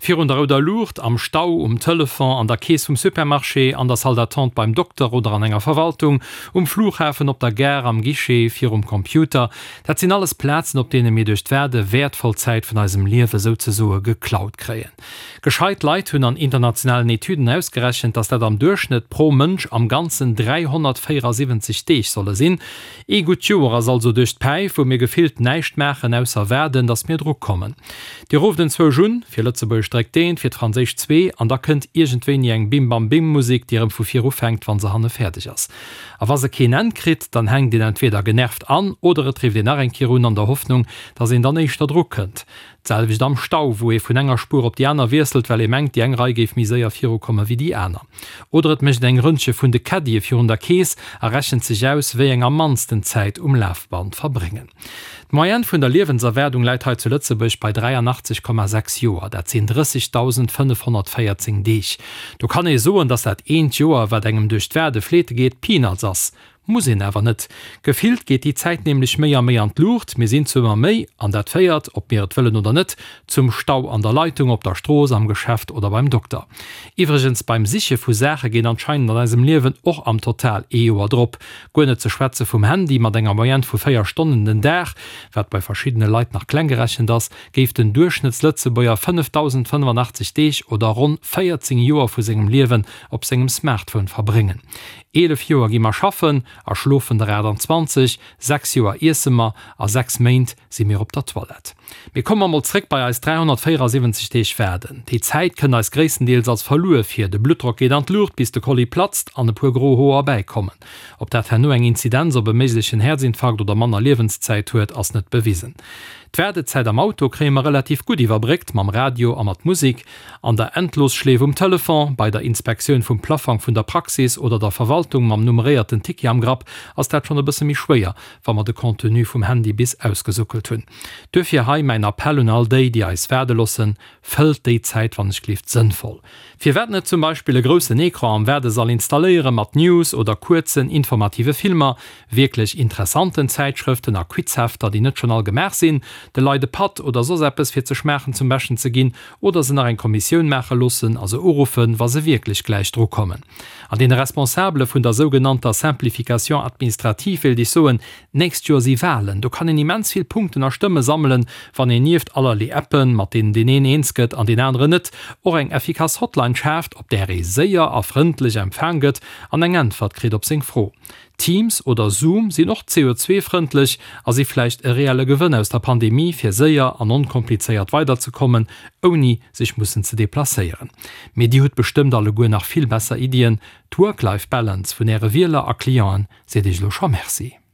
Virun der rouder Luucht, am Stau, um Telefon, an der Keess vum Supermarché, an der Salle d'attente beim Dokter oder an enger Verwaltung, um Flughafen, op der Gare, am Guichet, virum Computer, dat sinn alles Plazen, op deene mir duerch d'Waarde wäertvoll Zäit vun eisem Liewe souzesoe geklaut kréien. Gescheit Leit hunn an internationalen Etüden ausgerechent, dass dat am Duerchschnëtt pro Mënsch am Ganzen 374 Deeg solle sinn. Ee gutt Joer ass also duerch d'Päif, wou mir gefillt näischt maachen, ausser waarden, dass mir dru kommen. Dir rufft enzwousch un, fir Lëtzebuergesch dréckt eent, fir d'Franséisch zwee, an da kënnt iergendwéini eng Bim-Bam-Bim-Musek, déi erëm vu vir ufänkt, wa se hanne fäerdeg ass. A wa se keen Enn kritt, dann hänkt een entweeder genervt an oder et rifft een nach eng Kéier un, an der Hoffnung, dass een dann éischter dru kënnt. D'selwecht am Stau, wou ee vun enger Spuer op déi aner wiesselt, well ee mengt, déi eng Rei géif méi séier virukomme wéi déi aner. Oder et mécht een eng Rëndche vun de Caddie virun der Keess a rechent sech aus, wéi eng am mannsten Zäit um Lafband verbréngen. D'Moyenne vun der Liewenserwaardung läit hei zu Lëtzebuerg bei 83,6 Joer, dat sinn 30.514 Deeg. Do kann ee soen, datt dat eent Joer, wat engem duerch d'Waarde fleete geet, Peanuts ass. Muss een awer net. Gefillt geet déi Zäit nämlech méi a méi an d'Luucht, mir sinn zu ëmmer méi, an dat féiert, ob mir et wëllen oder net, zum Stau an der Leitung, op der Strooss, am Geschäft oder beim Dokter. Iwwregens, beim Siche vu Saache geet anscheinend an eisem Liewen och am Total ee Joer drop. Guer net ze schwätze vum Handy, mat enger Moyenne vu 4 Stonnen den Dag, wat bei verschiddene Leit nach kleng gerechent ass, géif den Duerchschnëttslëtzebuerger 5.085 Deeg oder ronn 14 Joer vu sengem Liewen op sengem Smartphone verbréngen. 11 Joer gi mer schaffen a schlofen der 28, 6 Joer iesse mer a 6 Méint si mir op der Toilette. Mee komme mer mol zréck bei eis 374 Deeg waarden. Déi Zäit kënnt eis gréisstendeels als verluer vir. De Bluttdrock geet an d'Luucht bis de Kolli platzt an e puer gro Hoer bäikommen. Ob dat herno eng Inzidenz op e méiglechen Häerzinfarkt oder manner Liewenszäit huet, ass net bewisen. D'Waardezäit am Auto kréie mer relativ gutt iwwerbréckt mam Radio a mat Musik. An der Endlosschleef um Telefon, bei der Inspektioun vum Plaffang vun der Praxis oder der Verwaltung mam nummeréierten Ticket am Grapp ass dat schonn e bësse méi schwéier, wa mer de Contenu vum Handy bis ausgesuckelt hunn. Duerfir hei mäin Appell un all déi, déi eis waarde loossen, Fëllt déi Zäit wann ech gleeft sënnvoll. Firwat net zum Beispill e groussen Ecran am Waardesall installéiere mat News oder kuerzen informative Filmer, wierklech interessanten Zäitschrëften a Quizhefter, déi net schonn all gemaach sinn, de Leit e Patt oder soss eppes fir ze schmaachen zum Beschten ze ginn oder se nach eng Kommissioun maache loossen a se uruffen, wa se wierklech gläich dru kommen. An deene Responsabele vun der sougenannter Simplification administrative wéilt ech soen, D'nächst Joer si Wahlen, do kann een immens vill Punkten a Stëmme sammelen, wann een nieft allerlee Appen, mat deenen deen een eens gëtt an deen aneren net, och eng effikass Hotline schaaft, op där ee séier a frëndlech empfaang gëtt an eng Äntwert kritt op seng Fro. Teams oder Zoom sinn och CO2-frëndlech a si vläicht e reelle Gewënn aus der Pandemie, fir séier an onkomplizéiert weiderzekommen, ouni sech mussen ze deplacéieren. Mee Dir hutt bestëmmt alleguer nach vill besser Iddien. D'Work-Life-Balance vun Äre Wieler a Clienten seet Iech elo scho Merci.